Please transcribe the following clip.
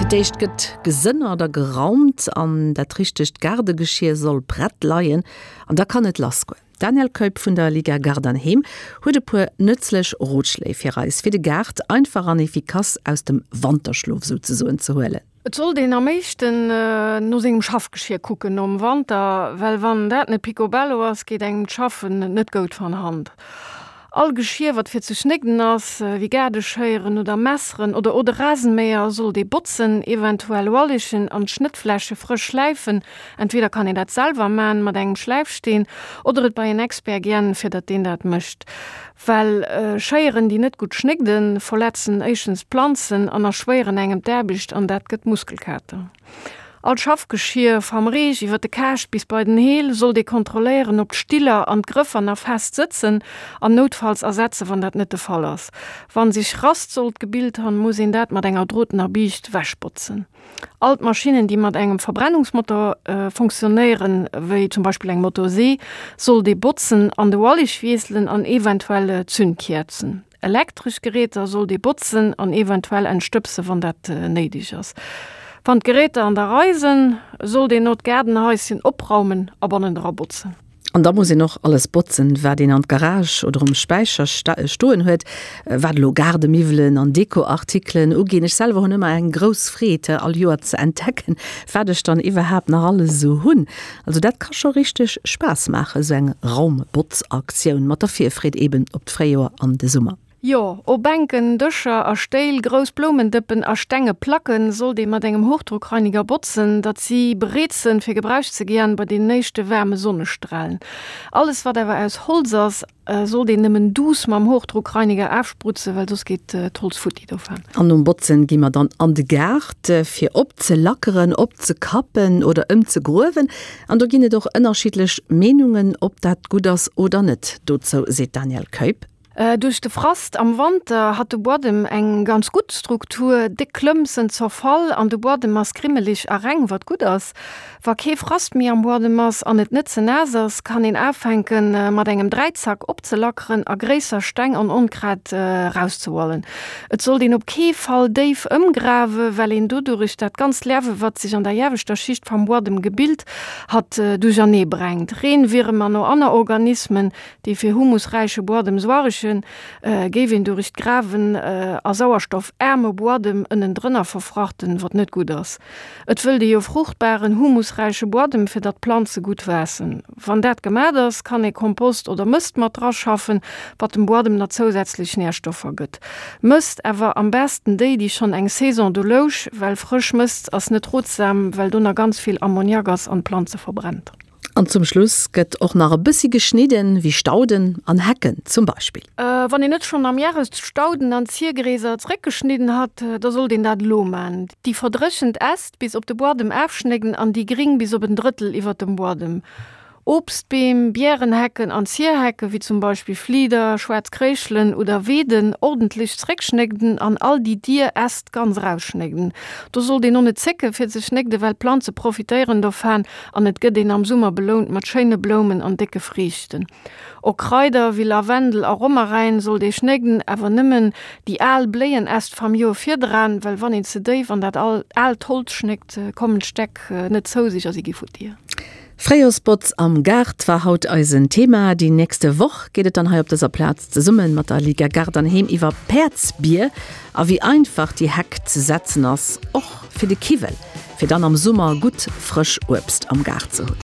Fir d'éischt gëtt gesënnert a geraumt an dat richtegt Gaardegeschier soll prett leien an da kann et lassgoen. D'Danièle Keup vun der Liga Gard an Heem huet e puer nëtzlech Rotschléi fir eis, fir de Gaart einfach an efficace aus dem Wanterschlof souzesoen ze huelen. Et sollt een am éischten no sengem Schaffgeschier kucken nom Wanter, well wann dat net picobello ass, geet engem d'Schaffen net goud van Hand. All Geschier wat fir ze schnégden ass, wéi Gaardeschéieren oder Messeren oder oder Rasenmäher, sollt ee botzen, eventuell ualegen an d'Schnëttfläche frësch schläifen. Entweder kann een dat selwer man mat engem Schläifsteen oder et bei en Expert giän, fir datt deen dat mécht. Well Schéieren, déi net gutt schnégden, verletzen éischtens d'Planzen an erschwéieren engem d'Aarbecht an dat gëtt Muskelkater. All Schaffgeschier, vam Reech iwwer de Kaascht bis bei den Heel, sollt ee kontrolléieren, ob d'Stiller an d'Grëffer nach fest sëtzen an noutfalls ersetzen, wann dat net de Fall ass. Wann sech Rast sollt gebilt han, muss een dat mat enger drotener Biischt wechbotzen. All d'Maschinnen, déi mat engem Verbrennungsmotor funktionéieren, wéi zum Beispill eng Motorsee, sollt ee botzen an de Wallich wiesselen an eventuell Zündkäerzen. Elektresch Geräter sollt ee botzen an eventuell entstëbsen, wann dat néideg ass. Wann d'Geräter an der Rei sënn, sollt een no d'Gaardenhaischen opraumen a bannendra botzen. An da muss een och alles botzen, wat een an d'Garage oder um Späicher stoen huet, wat elo Gaardemiwwelen an Dekoartikelen uginn. Ech selwer hunn ëmmer eng grouss Freed, all Joer ze entdecken, wat ech dann iwwerhaapt nach alles esou hunn. Also dat ka scho richteg Spaass maachen, esou eng Raumbotzaktioun mat der Virfreed eben op d'Fréijoer an de Summer. Jo, o Bänken, Dëscher a Stéil, grouss Bloumendëppen a stenge Placken sollt ee mat engem Hochdruckreiniger botzen, datt si bereet sënn fir gebraucht ze giän bei den éischte waarme Sonnestrahlen. Alles wat awer aus Holz ass, sollt een nëmmen duuss mam Hochdruckreiniger aafsprutzen, well soss geet d'Holz futti dovaan. An nom Botzen gi mer dann an de Gaart fir opzelackeren, opzekappen oder ëmzegruewen. An do ginn et och ënnerschiddlech Meenungen, ob dat gutt ass oder net. Dozou seet d'Danièle Keup. Duerch de Frast am Wanter hat de Buadem eng ganz gutt Struktur, déck Klëmp sënn zerfall an de Buadem ass grimmelig a reng, wat gutt ass. Wa kee Frast méi am Buadem ass an et net ze naass ass, kann een aafänken mat engem Dräizack opzelackeren a gréisser Steng an Onkraut rauszehualen. Et sollt een op kee Fall déif ëmgrawe, well een dodurich dat ganzt Lerwe wat sech an der ieweschter Schicht vam Buadem gebilt hat duerchernee brengt. Reenwierem an o anner Organismen Déi fir humusräiche Buadem suaregen, géif een durich d'Grawen a sauerstoffaarme Buadem ënnendrënner verfrachten, wat net gutt ass. Et wëllt ee jo fruchtbaren, humusräiche Buadem, fir datt d'Planze gutt waassen. Wann dat gemat ass, kann ee Kompost oder Mëst mat draschaffen, wat dem Buadem na zousätzlech Nährstoffer gëtt. Mëst awer am besten déi, déi schonn eng Saison do louch, well frësch Mëst ass net rotsam, well do na ganz vill Ammoniak ass an d'Planze verbrennt. An zum Schluss gëtt och nach e bëssi geschnidden, wéi Stauden an Hecken zum Beispill. Wann een net schonn am Järest d'Stauden an d'Ziergräser zeréckgeschnidden hat, da sollt een dat elo man. Déi verdréchent Äst bis op de Buadem afschnégden an déi gring bis op en Drëttel iwwert dem Buadem. Obstbeem, Biärenhecken an Zierhecke wéi zum Beispill Flieder, schwaarz Kréischelen oder Weeden ordentlech zeréckschnégden an all déi dier Äst ganz erausschnégden. Do sollt een och net zécke fir ze schnégden, well d'Planze profitéieren dovaan An et gëtt een am Summer belount mat schéine Bloumen an décke Friichten. Och Kraider wéi Lavendel a Romaräin sollt ee schnégden, awer nëmmen déi al Bléienäst vam Joer virdraan, well wann een ze déif an dat aalt Holz schnéckt, kommen d'Stäck net zou sech a si gi futti. Fréijorsbotz am Gaart war haut eisen Thema. Déi nächste Woch geet et dann hei op dëser Plaz zesumme mat der Liga Gaart an Heem iwwer Päerdsbier a wéi einfach déi Heck ze setzen ass, och fir de Kiwwel. Fir dann am Summer gutt frësch Uebst am Gaart ze hunn.